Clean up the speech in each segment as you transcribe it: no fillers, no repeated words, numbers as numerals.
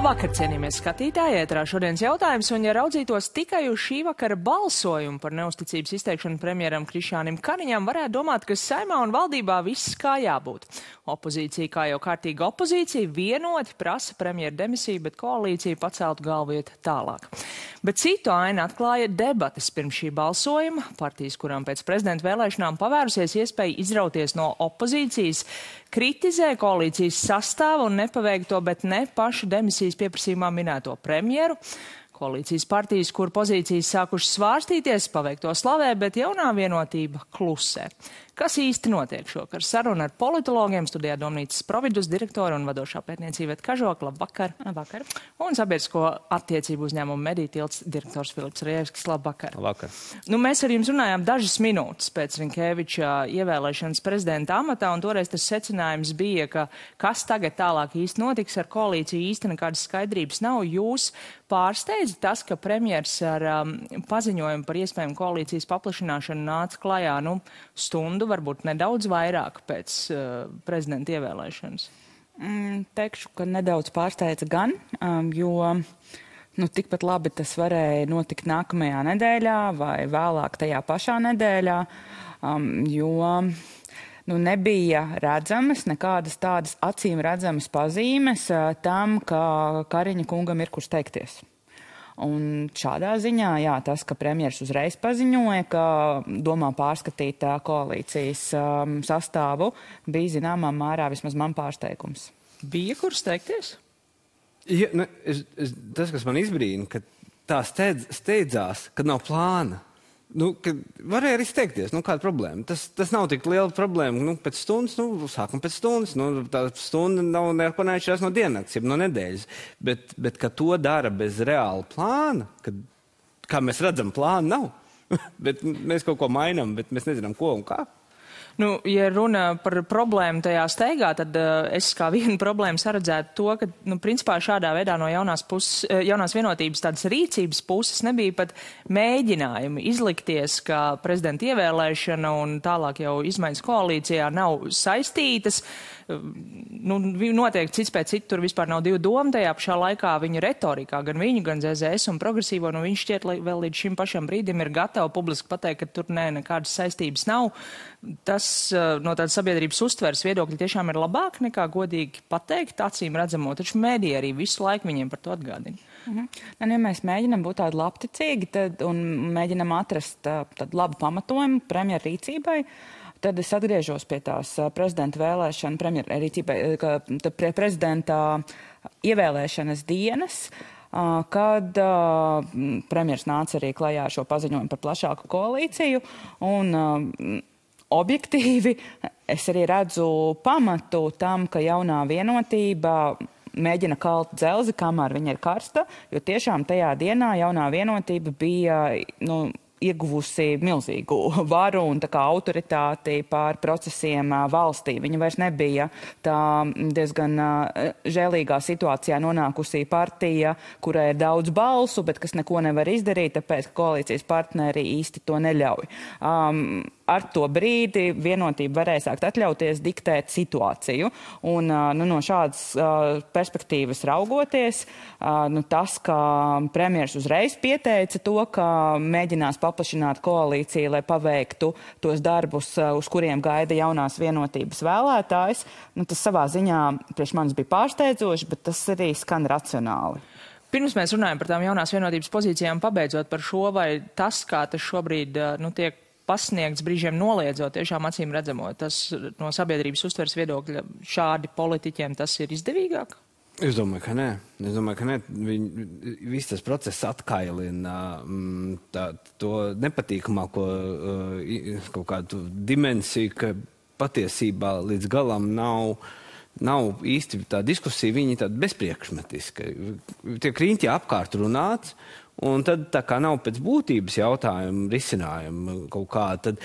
Labvakar, cienījamies skatītāji, ētrā šodienas jautājums, un ja raudzītos tikai uz šī vakara balsojumu par neusticības izteikšanu premjeram Krišjānim Kariņam, varētu domāt, ka Saeimā un valdībā viss kā jābūt. Opozīcija, kā jau kārtīga opozīcija, vienoti prasa premjera demisiju, bet koalīcija paceltu galvu iet tālāk. Bet citu ainu atklāja debates pirms šī balsojuma. Partijas, kurām pēc prezidenta vēlēšanām pavērusies iespēja izrauties no opozīcijas, kritizē koalīcijas sastāvu un nepaveikto, bet ne pašu demisijas pieprasījumā minēto premjeru. Koalīcijas partijas, kur pozīcijas sākušas svārstīties, paveikto slavē, bet jaunā vienotība klusē. Kas īsti notiek šokar? Saruna ar politologiem, studijā Domnīcas Providus direktora un vadošā pētniecība Iveta Kažoka. Labvakar. Labvakar. Un sabiedrisko attiecību uzņēmumu Mediju tilts direktors Filips Rejevskis. Labvakar. Labvakar. Mēs ar jums runājām dažas minūtes pēc Rinkēviča ievēlēšanas prezidenta amatā, un toreiz tas secinājums bija, ka kas tagad tālāk īsti notiks ar koalīciju, īsti nekādas skaidrības nav. Jūs pārsteidz tas, ka premjers ar paziņojumu par iespējamu koalīcijas paplašināšanu nāca klajā stundu, varbūt nedaudz vairāk pēc prezidenta ievēlēšanas? Teikšu, ka nedaudz pārsteidza gan, jo tikpat labi tas varēja notikt nākamajā nedēļā vai vēlāk tajā pašā nedēļā, jo nebija redzamas nekādas tādas acīm redzamas pazīmes tam, ka Kariņa kungam ir kur steigties. Un šādā ziņā, tas, ka premjers uzreiz paziņoja, ka domā pārskatīt koalīcijas sastāvu, bija zināmā mērā vismaz man pārsteigums. Bija kur steigties? Ja, tas, kas man izbrīna, ka tā steidzās, kad nav plāna. Varēja arī steigties, kāda problēma. Tas nav tik liela problēma. Pēc stundas, sākam pēc stundas. Tā stunda nav neko neatšķirās no diennakts, jeb no nedēļas. Bet ka to dara bez reāla plāna, kad, kā mēs redzam, plāna nav. Bet mēs kaut ko mainām, bet mēs nezinām, ko un kā. Ja runa par problēmu tajā steigā, tad es kā vienu problēmu saredzētu to, ka, principā šādā veidā no jaunās vienotības tādas rīcības puses nebija pat mēģinājumi izlikties, ka prezidenta ievēlēšana un tālāk jau izmaiņas koalīcijā nav saistītas. Notiek cits pēc citu, tur vispār nav divu domu tajā pašā laikā viņu retorikā, gan viņu, gan ZZS un progresīvo, viņš šķiet vēl līdz šim pašam brīdim ir gatavi publiski pateikt, ka tur nekādas saistības nav. Tas no tādas sabiedrības uztveres viedokļi tiešām ir labāk nekā godīgi pateikt, acīm redzamo, taču mēdī arī visu laiku viņiem par to atgādina. Ja mēs mēģinam būt tādi labticīgi un mēģinam atrast tādu labu pamatojumu premjera rīcībai, tad es atgriežos pie tās prezidenta vēlēšana, premjera rīcībai, prezidenta ievēlēšanas dienas, kad premjers nāca arī klajā ar šo paziņojumu par plašāku koalīciju, un objektīvi es arī redzu pamatu tam, ka jaunā vienotība mēģina kalt dzelzi, kamēr viņa ir karsta, jo tiešām tajā dienā jaunā vienotība bija, ieguvusi milzīgu varu un tā kā autoritāti pār procesiem valstī. Viņa vairs nebija tā diezgan žēlīgā situācijā nonākusī partija, kurai ir daudz balsu, bet kas neko nevar izdarīt, tāpēc, ka koalīcijas partneri īsti to neļauj. Ar to brīdi vienotība varēja sākt atļauties diktēt situāciju. Un no šādas perspektīvas raugoties, tas, ka premjers uzreiz pieteica to, ka mēģinās paplašināt koalīciju, lai paveiktu tos darbus, uz kuriem gaida jaunās vienotības vēlētājs, tas savā ziņā priekš manis bija pārsteidzoši, bet tas arī skan racionāli. Pirms mēs runājam par tām jaunās vienotības pozīcijām, pabeidzot par šo, vai tas, kā tas šobrīd tiek pasniegts brīžiem noliedzot, tiešām acīm redzamo, tas no sabiedrības uztveres viedokļa šādi politiķiem tas ir izdevīgāk? Es domāju, ka nē. Viss tas process atkailina to nepatīkamāko kaut kādu dimensiju, ka patiesībā līdz galam nav īsti tā diskusija, viņi tāda bezpriekšmetiska. Tiek riņķi apkārt runāts, un tad tā kā nav pēc būtības jautājumu risinājumu kaut kā, tad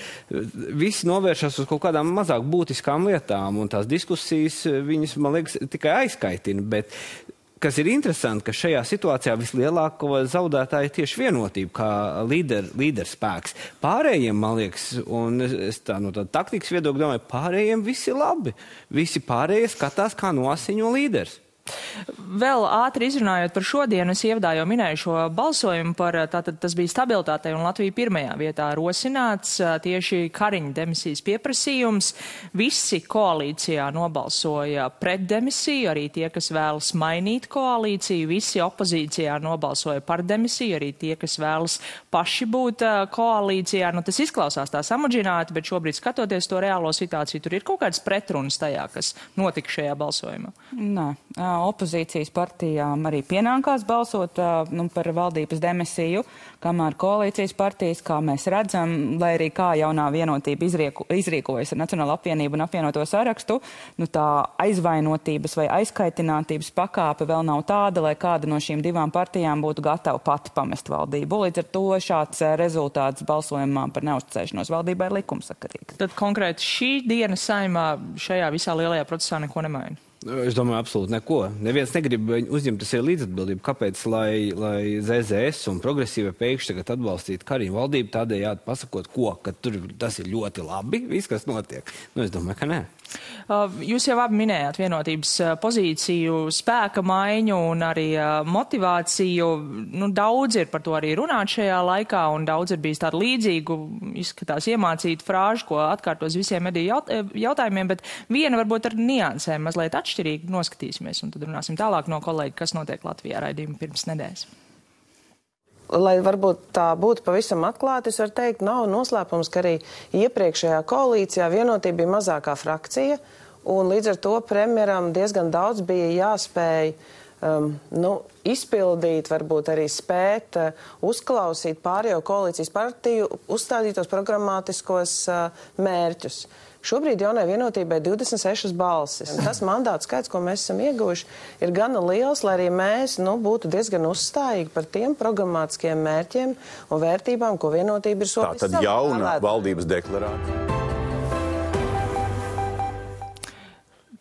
visi novēršas uz kaut kādām mazāk būtiskām lietām, un tās diskusijas viņas, man liekas, tikai aizkaitina, bet kas ir interesanti, ka šajā situācijā vislielāko zaudētāju tieši vienotība kā līderspēks. Pārējiem, man liekas, un es tā no tāda taktikas viedokļa domāju, pārējiem visi labi. Visi pārējie skatās, kā nosiņo līderis. Vēl ātri izrunājot par šodienu, es ievadā jau minēju šo balsojumu par, tātad tas bija stabilitātei un Latvija pirmajā vietā rosināts tieši Kariņa demisijas pieprasījums. Visi koalīcijā nobalsoja pret demisiju, arī tie, kas vēlas mainīt koalīciju, visi opozīcijā nobalsoja par demisiju, arī tie, kas vēlas paši būt koalīcijā. Nu, tas izklausās tā samudžināti, bet šobrīd skatoties to reālo situāciju, tur ir kaut kāds pretrunas tajā, kas notika šajā balsojumā. Nē, opozīcijas partijām arī pienākās balsot par valdības demisiju, kamēr koalīcijas partijas, kā mēs redzam, lai arī kā jaunā vienotība izrīkojas ar Nacionālo apvienību un apvienoto sarakstu, tā aizvainotības vai aizkaitinātības pakāpe vēl nav tāda, lai kāda no šīm divām partijām būtu gatava pati pamest valdību. Līdz ar to šāds rezultāts balsojumā par neuzticēšanos valdībai ir likumsakarīgs. Tad konkrēti šī diena Saeimā šajā visā lielajā procesā neko nemaina? Es domāju, absolūti neko. Neviens negrib uzņemties līdzatbildību. Kāpēc, lai ZZS un progresīva pēkšņi tagad atbalstītu Kariņu valdību, tādējādi pasakot, ka tas ir ļoti labi, viss, kas notiek? Es domāju, ka nē. Jūs jau abi minējāt vienotības pozīciju, spēka maiņu un arī motivāciju. Daudz ir par to arī runāt šajā laikā, un daudz ir bijis tādu līdzīgu, izskatās iemācītu frāžu, ko atkārtos visiem mediju jautājumiem, bet viena varbūt ar niansēm mazliet atšķirīgi noskatīsimies, un tad runāsim tālāk no kolēģi, kas notiek Latvijā raidījuma pirms nedēļas. Lai varbūt tā būtu pavisam atklāti, es varu teikt, nav noslēpums, ka arī iepriekšējā koalīcijā vienotība bija mazākā frakcija, un līdz ar to premjeram diezgan daudz bija jāspēj izpildīt, varbūt arī spēt uzklausīt pārējo koalīcijas partiju uzstādītos programmatiskos mērķus. Šobrīd jaunai vienotībai 26 balsis. Tas mandātu skaits, ko mēs esam ieguvuši, ir gana liels, lai arī mēs būtu diezgan uzstājīgi par tiem programmatiskiem mērķiem un vērtībām, ko vienotība ir solījusi. Tā tad jauna valdības deklarācija.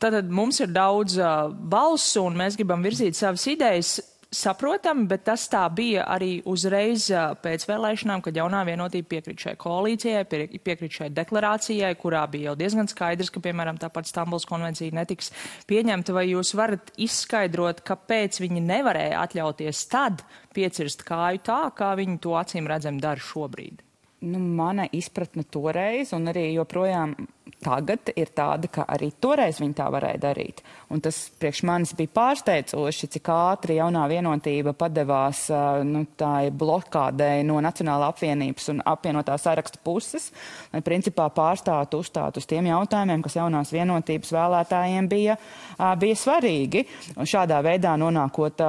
Tātad mums ir daudz balsu un mēs gribam virzīt savas idejas. Saprotami, bet tas tā bija arī uzreiz pēc vēlēšanām, kad jaunā vienotība piekrīt šai koalīcijai, piekrīt šai deklarācijai, kurā bija jau diezgan skaidrs, ka, piemēram, tāpat Stambulas konvencija netiks pieņemta. Vai jūs varat izskaidrot, kāpēc viņi nevarēja atļauties tad piecirst kāju tā, kā viņi to acīm redzam dara šobrīd? Mana izpratne toreiz un arī joprojām tagad ir tāda, ka arī toreiz viņi tā varēja darīt. Un tas priekš manis bija pārsteidzoši, cik ātri jaunā vienotība padevās tā blokādei no Nacionālā apvienības un apvienotā saraksta puses, lai principā pārstātu uzstāt uz tiem jautājumiem, kas jaunās vienotības vēlētājiem bija svarīgi. Un šādā veidā nonākot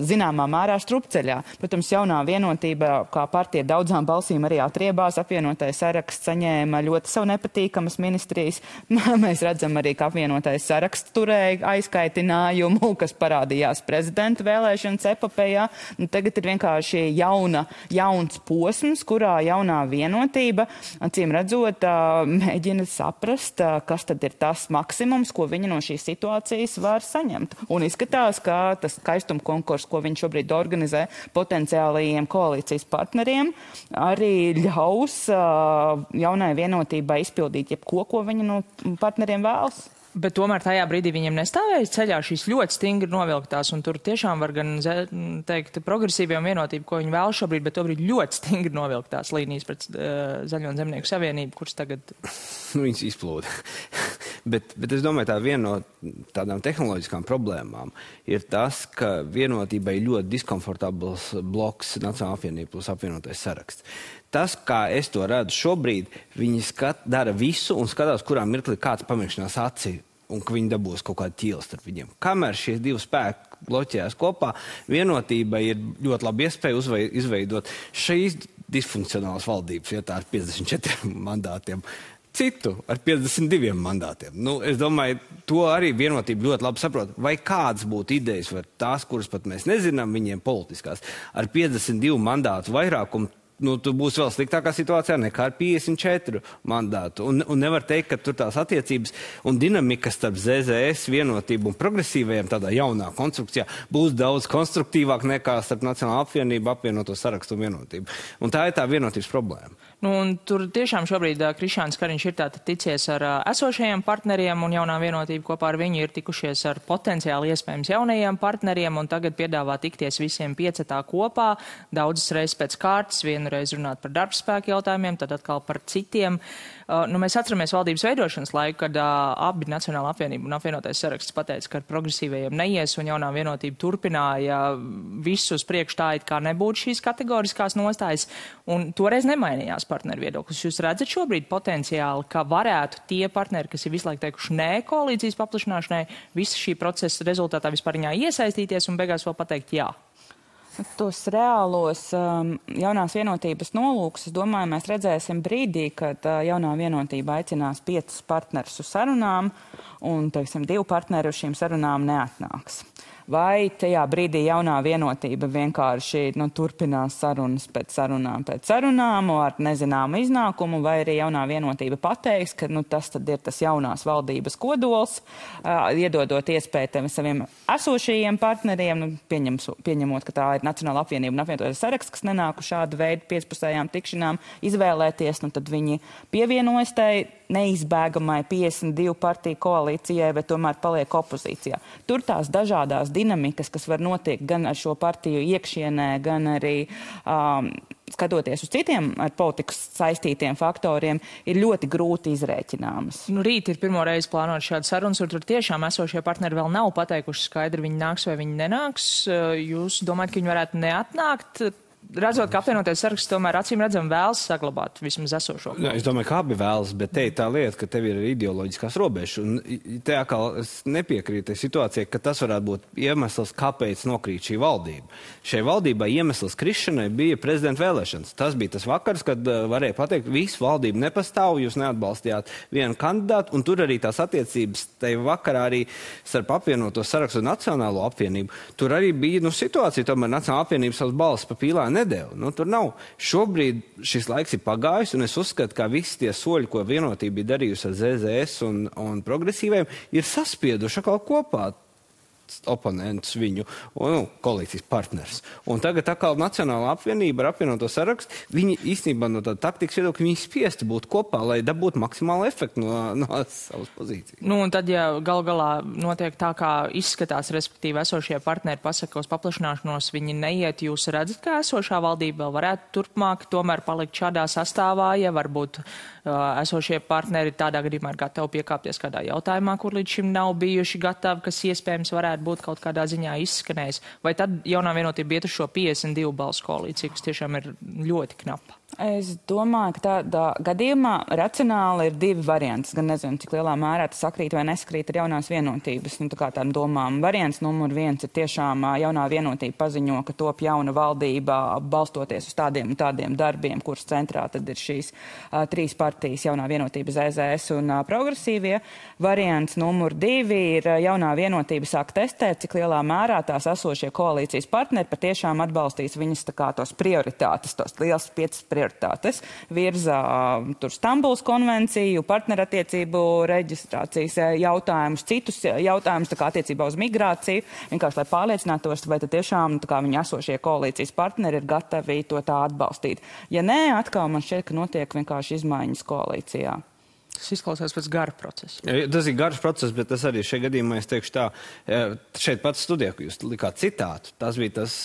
zināmā mērā strupceļā. Protams, jaunā vienotība, kā partija daudzām balsīm arī atriebās, apvienotais saraksts saņēma ļoti savu nepatīkamas ministrijas. Mēs redzam arī, ka apvienotais saraksts turēja aizkaitinājumu, kas parādījās prezidenta vēlēšanas epopejā. Tagad ir vienkārši jauns posms, kurā jaunā vienotība, acīm redzot, mēģina saprast, kas tad ir tas maksimums, ko viņi no šīs situācijas var saņemt. Un izskatās, ka tas skaistuma konkurss, ko viņi šobrīd organizē potenciālajiem koalīcijas partneriem, arī ļaus jaunai vienotībai izpildīt jebko, ko viņi no partneriem vēlas. Bet tomēr tajā brīdī viņiem nestāvēja ceļā šīs ļoti stingri novilktās, un tur tiešām var gan teikt progresīvie un vienotība, ko viņi vēl šobrīd, bet tobrīd ļoti stingri novilktās līnijas pret Zaļo un Zemnieku savienību, kuras tagad... Viņas izplūda. bet es domāju, tā viena no tādām tehnoloģiskām problēmām ir tas, ka vienotībai ļoti diskomfortabls bloks Nacionālā apvienība plus apvienotais saraksts. Tas, kā es to redzu šobrīd, viņi dara visu un skatās, kurā mirklī kāds pamēģinās aci un ka viņi dabūs kaut kādu ķīli starp viņiem. Kamēr šie divi spēki bloķējās kopā, vienotība ir ļoti labi iespēja izveidot šīs disfunkcionālas valdības vietā ar 54 mandātiem. Citu ar 52 mandātiem. Es domāju, to arī vienotība ļoti labi saprot. Vai kāds būtu idejas, vai tās, kuras pat mēs nezinām, viņiem politiskās, ar 52 mandātu vairākumu tu būsi vēl sliktākā situācijā nekā ar 54 mandātu. Un nevar teikt, ka tur tās attiecības un dinamika starp ZZS vienotību un progresīvajiem tādā jaunā konstrukcijā būs daudz konstruktīvāk nekā starp Nacionālo apvienību, apvienoto sarakstu un vienotību. Un tā ir tā vienotības problēma. Un tur tiešām šobrīd Krišjāns Kariņš ir tātad ticies ar esošajiem partneriem un jaunā vienotība kopā ar viņu ir tikušies ar potenciāli iespējams jaunajiem partneriem un tagad piedāvā tikties visiem 5 kopā, daudzas reizes pēc kārtas, vienu reizi runāt par darbspēku jautājumiem, tad atkal par citiem. Mēs atceramies valdības veidošanas laiku, kad abi Nacionāla apvienība un apvienotais saraksts pateica, ka ar progresīvajiem neies un jaunā vienotība turpināja visus priekš tā, it kā nebūtu šīs kategoriskās nostājas, un toreiz nemainījās partneru viedoklis. Jūs redzat šobrīd potenciāli, ka varētu tie partneri, kas ir visu laiku teikuši nē koalīcijas paplašināšanai, visa šī procesa rezultātā vispāriņā iesaistīties un beigās vēl pateikt jā? Tos reālos jaunās vienotības nolūkus, es domāju, mēs redzēsim brīdī, kad jaunā vienotība aicinās 5 partnerus uz sarunām un, teiksim, 2 partneri uz šīm sarunām neatnāks. Vai tajā brīdī jaunā vienotība vienkārši turpinās sarunas pēc sarunām ar nezināmu iznākumu, vai arī jaunā vienotība pateiks, ka tas tad ir tas jaunās valdības kodols, iedodot iespēju saviem esošajiem partneriem, pieņemot, ka tā ir Nacionāla apvienība un apvienotais saraksts, kas nenāku šādu veidu 5-pusējām tikšanām izvēlēties, tad viņi pievienojas tai neizbēgamai 52 partiju koalīcijai, bet tomēr paliek opozīcijā. Tur tās dažādās dinamikas, kas var notiekt gan ar šo partiju iekšienē, gan arī skatoties uz citiem ar politikas saistītiem faktoriem, ir ļoti grūti izrēķināmas. Rīt ir pirmo reizi plānot šādu sarunas, un tur tiešām esošie partneri vēl nav pateikuši skaidri, viņi nāks vai viņi nenāks. Jūs domājat, ka viņi varētu neatnākt? Redzot, ka apvienotais saraksts tomēr acīm redzam vēlas saglabāt vismaz esošo. Jā, es domāju, ka abi vēlas, bet te ir tā lieta, ka tev ir ideoloģiskās robežas. Un te atkal es nepiekrītu situācijai, ka tas varētu būt iemesls, kāpēc nokrīt šī valdība. Šai valdībai iemesls krišanai bija prezidenta vēlēšanas. Tas bija tas vakars, kad varēja pateikt, visu valdību nepastāv, jūs neatbalstījāt vienu kandidātu, un tur arī tās attiecības tajā vakarā arī starp apvienoto sarakstu un Nacionālo apvienību. Tur arī bija situācija, tomēr Nacionāla apvienība savas balsis pa pīlā nedēļu. Tur nav. Šobrīd šis laiks ir pagājis, un es uzskatu, ka visi tie soļi, ko vienotība bija darījusi ar ZZS un progresīviem, ir saspieduši atkal kopā oponentus viņu, koalīcijas partners. Un tagad atkal Nacionāla apvienība ar apvienoto sarakstu, viņi īstenībā no tāda taktikas viedokļa, viņi spiesti būt kopā, lai dabūtu maksimālu efektu no savas pozīcijas. Un tad, ja galā notiek tā, kā izskatās, respektīvi esošie partneri pasaka uz paplašināšanos, viņi neiet, jūs redzat, ka esošā valdība vēl varētu turpmāk tomēr palikt šādā sastāvā, ja varbūt esošie partneri tādā gadījumā ir gatavi piekāpties kādā jautājumā, kur līdz šim nav bijuši gatavi, kas iespējams varētu būt kaut kādā ziņā izskanējis. Vai tad jaunā vienotība iet uz šo 52 balsu koalīciju, kas tiešām ir ļoti knapa? Es domāju, ka tādā gadījumā racionāli ir 2 varianti. Gan nezinu, cik lielā mērā tas sakrīt vai nesakrīt ar jaunās vienotības tādām domām. Variants numur 1 ir tiešām jaunā vienotība paziņo, ka top jauna valdība balstoties uz tādiem un tādiem darbiem, kuras centrā tad ir šīs 3 partijas jaunā vienotība, ZZS un progresīvie. Variants numur 2 ir jaunā vienotība sāk testēt, cik lielā mērā tās esošie koalīcijas partneri patiešām atbalstīs viņas tos prioritātes, tos liels 5 prioritātes, virza Stambulas konvenciju, partnerattiecību reģistrācijas jautājumus, citus jautājumus attiecībā uz migrāciju, vienkārši lai pārliecinātos, vai tad tiešām viņi esošie koalīcijas partneri ir gatavi to tā atbalstīt. Ja nē, atkal man šķiet, ka notiek vienkārši izmaiņas koalīcijā. Tas izklausās pēc gara procesa. Tas ir garš process, bet tas arī šajā gadījumā, es teikšu tā, šeit pats studijā, ka jūs likāt citātu. Tas bija tas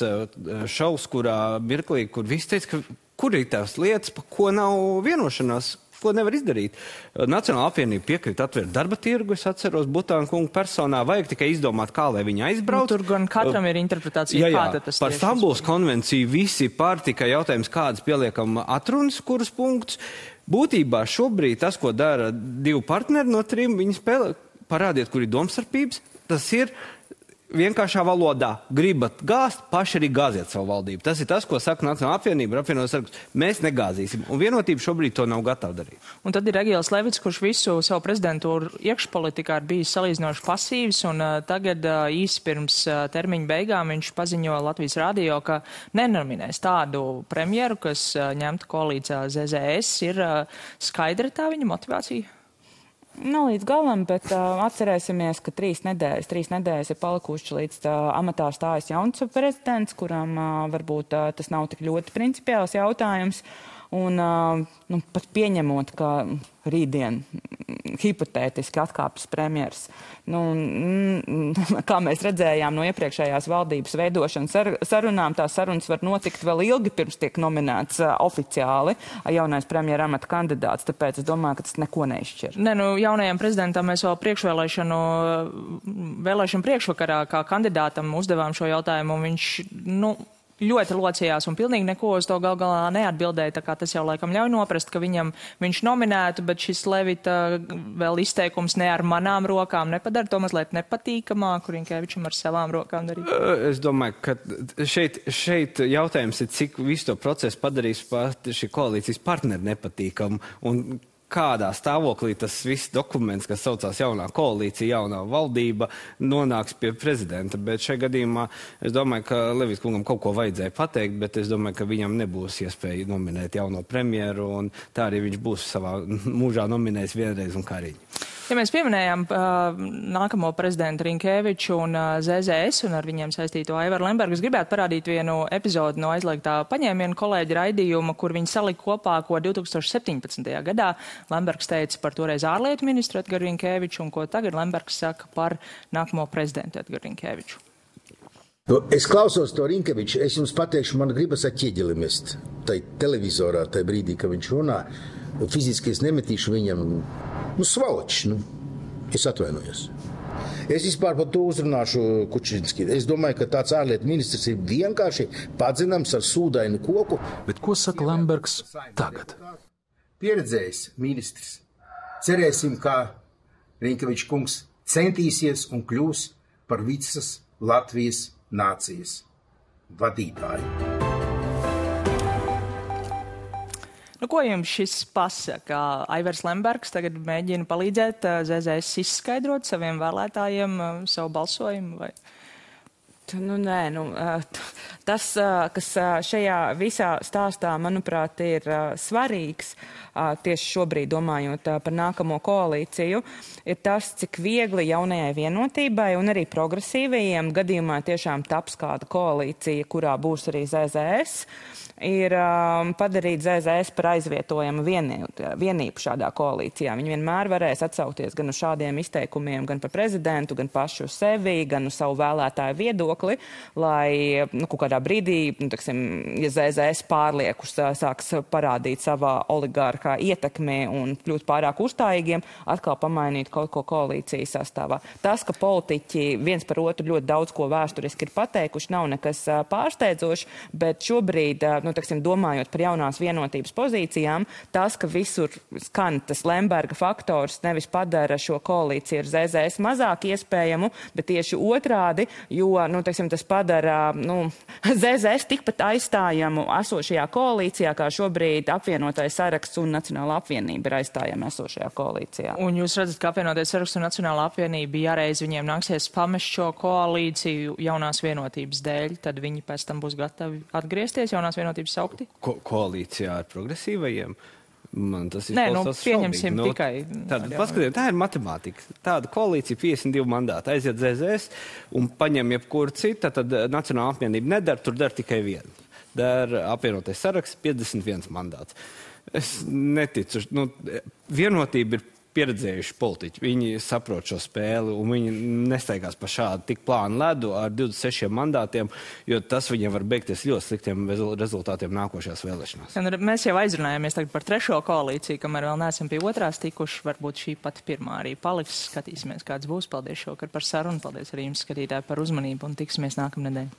šovs, kurā mirklī, kur visi teica, ka kur ir tās lietas, pa ko nav vienošanās, ko nevar izdarīt. Nacionāla apvienība piekrīt atvērt darba tirgu, es atceros Butāna kungu personā, vajag tikai izdomāt, kā lai viņi aizbrauc. Tur gan katram ir interpretācija, kāda tas par Stambulas konvenciju visi pār tikai jautājums, kādas pieliekam atrunas, kurus punktus. Būtībā šobrīd tas, ko dara 2 partneri no 3, viņi spēlē, parādiet, kur ir domstarpības, tas ir vienkāršā valodā gribat gāzt, paši arī gāziet savu valdību. Tas ir tas, ko saka Nacionālā apvienība, apvienotās saraksts. Mēs negāzīsim, un vienotība šobrīd to nav gatava darīt. Un tad ir Egīls Levits, kurš visu savu prezidentūru iekšpolitikā ir bijis salīdzinoši pasīvs, un tagad īsi pirms termiņa beigām viņš paziņo Latvijas radio, ka nenominēs tādu premjeru, kas ņemtu koalīcijā ZZS. Ir skaidra tā viņa motivācija? Nav līdz galam, bet atcerēsimies, ka 3 nedēļas ir palikuši līdz amatā stājas jauns prezidents, kuram varbūt tas nav tik ļoti principiāls jautājums. Un pat pieņemot, ka rītdien hipotētiski atkāpjas premjers. Kā mēs redzējām no iepriekšējās valdības veidošanas sarunām, tās sarunas var notikt vēl ilgi pirms tiek nominēts oficiāli jaunais premjera amata kandidāts, tāpēc es domāju, ka tas neko neizšķir. Jaunajam prezidentam mēs vēl vēlēšanu priekšvakarā kā kandidātam uzdevām šo jautājumu, un viņš, ļoti locījās un pilnīgi neko uz to galā neatbildēja, tā kā tas jau laikam ļauj noprast, ka viņš nominētu, bet šis Levita vēl izteikums ne ar manām rokām nepadara to mazliet nepatīkamāku Rinkevičam ar savām rokām darīt. Es domāju, ka šeit jautājums ir, cik visu to procesu padarīs šī koalīcijas partneri nepatīkamu un kādā stāvoklī tas viss dokuments, kas saucās jaunā koalīcija, jaunā valdība, nonāks pie prezidenta. Bet šajā gadījumā es domāju, ka Levits kungam kaut ko vajadzēja pateikt, bet es domāju, ka viņam nebūs iespēja nominēt jauno premjeru, un tā arī viņš būs savā mūžā nominējis vienreiz un Kariņu. Ja mēs pieminējām nākamo prezidentu Rinkeviču un ZZS un ar viņiem saistīto Aivaru Lembergu, es gribētu parādīt vienu epizodi no aizliegtā paņēmiena kolēģa raidījuma, kur viņi salika kopā, ko 2017. gadā Lembergs teica par toreiz ārlietu ministru Edgaru Rinkeviču un ko tagad Lembergs saka par nākamo prezidentu Edgaru Rinkeviču. Es klausos to Rinkeviču, es jums pateikšu, man gribas ar ķieģeli mest. Tai televizorā, tai brīdī, kad viņš runā, fiziski es nemetīšu viņam, svaločs, es atvainojos. Es vispār par to uzrunāšu Kučinski. Es domāju, ka tāds ārlietu ministrs ir vienkārši padzināms ar sūdainu koku. Bet ko saka Lembergs tagad? Pieredzējis ministrs. Cerēsim, ka Rinkevičs kungs centīsies un kļūs par visas Latvijas nācijas vadītāju. Ko jums šis pasaka? Aivars Lembergs tagad mēģina palīdzēt ZZS izskaidrot saviem vēlētājiem savu balsojumu? Vai? Tas, kas šajā visā stāstā, manuprāt, ir svarīgs, tieši šobrīd domājot par nākamo koalīciju, ir tas, cik viegli jaunajai vienotībai un arī progresīvajiem gadījumā tiešām taps kāda koalīcija, kurā būs arī ZZS, ir padarīt ZZS par aizvietojamu vienību šādā koalīcijā. Viņi vienmēr varēs atsaukties gan uz šādiem izteikumiem, gan par prezidentu, gan pašu sevi, gan uz savu vēlētāju viedokli, lai kaut kādā brīdī, ja ZZS pārliekus sāks parādīt savā oligārkā ietekmē un kļūt pārāk uzstājīgiem, atkal pamainīt kaut ko koalīcijas sastāvā. Tas, ka politiķi viens par otru ļoti daudz ko vēsturiski ir pateikuši, nav nekas pārsteidzošs, bet šobrīd domājot par jaunās vienotības pozīcijām, tas, ka visur skan tas Lemberga faktors, nevis padara šo koalīciju ar ZZS mazāk iespējamu, bet tieši otrādi, jo, tas padara, ZZS tikpat aizstājamu esošajā koalīcijā, kā šobrīd apvienotais saraksts un Nacionālā apvienība ir aizstājama esošajā koalīcijā. Un jūs redzat, ka apvienotais saraksts un Nacionālā apvienība jāreiz viņiem nāksies pamest šo koalīciju jaunās vienotības dēļ, tad viņi pēc tam būs gatavi atgriezties jaunās vienotības saukti? Koalīcijā ar progresīvajiem? Man tas ir pieņemsim tikai. Paskatieties, tā ir matemātika. Tāda koalīcija 52 mandāti aiziet ZZS un paņem jebkuru citu, tad Nacionālā apvienība nedara, tur dara tikai vienu. Dara apvienotais saraksts 51 mandāts. Es neticu. Vienotība ir pieredzējuši politiķi. Viņi saprot šo spēli un viņi nesteigās pa šādu tik plānu ledu ar 26 mandātiem, jo tas viņiem var beigties ļoti sliktiem rezultātiem nākošajās vēlēšanās. Mēs jau aizrunājāmies tagad par trešo koalīciju, kamēr vēl neesam pie otrās tikuši. Varbūt šī pati pirmā arī paliks. Skatīsimies, kāds būs. Paldies šovakar par sarunu. Paldies arī jums, skatītāji, par uzmanību un tiksimies nākamnedēļ.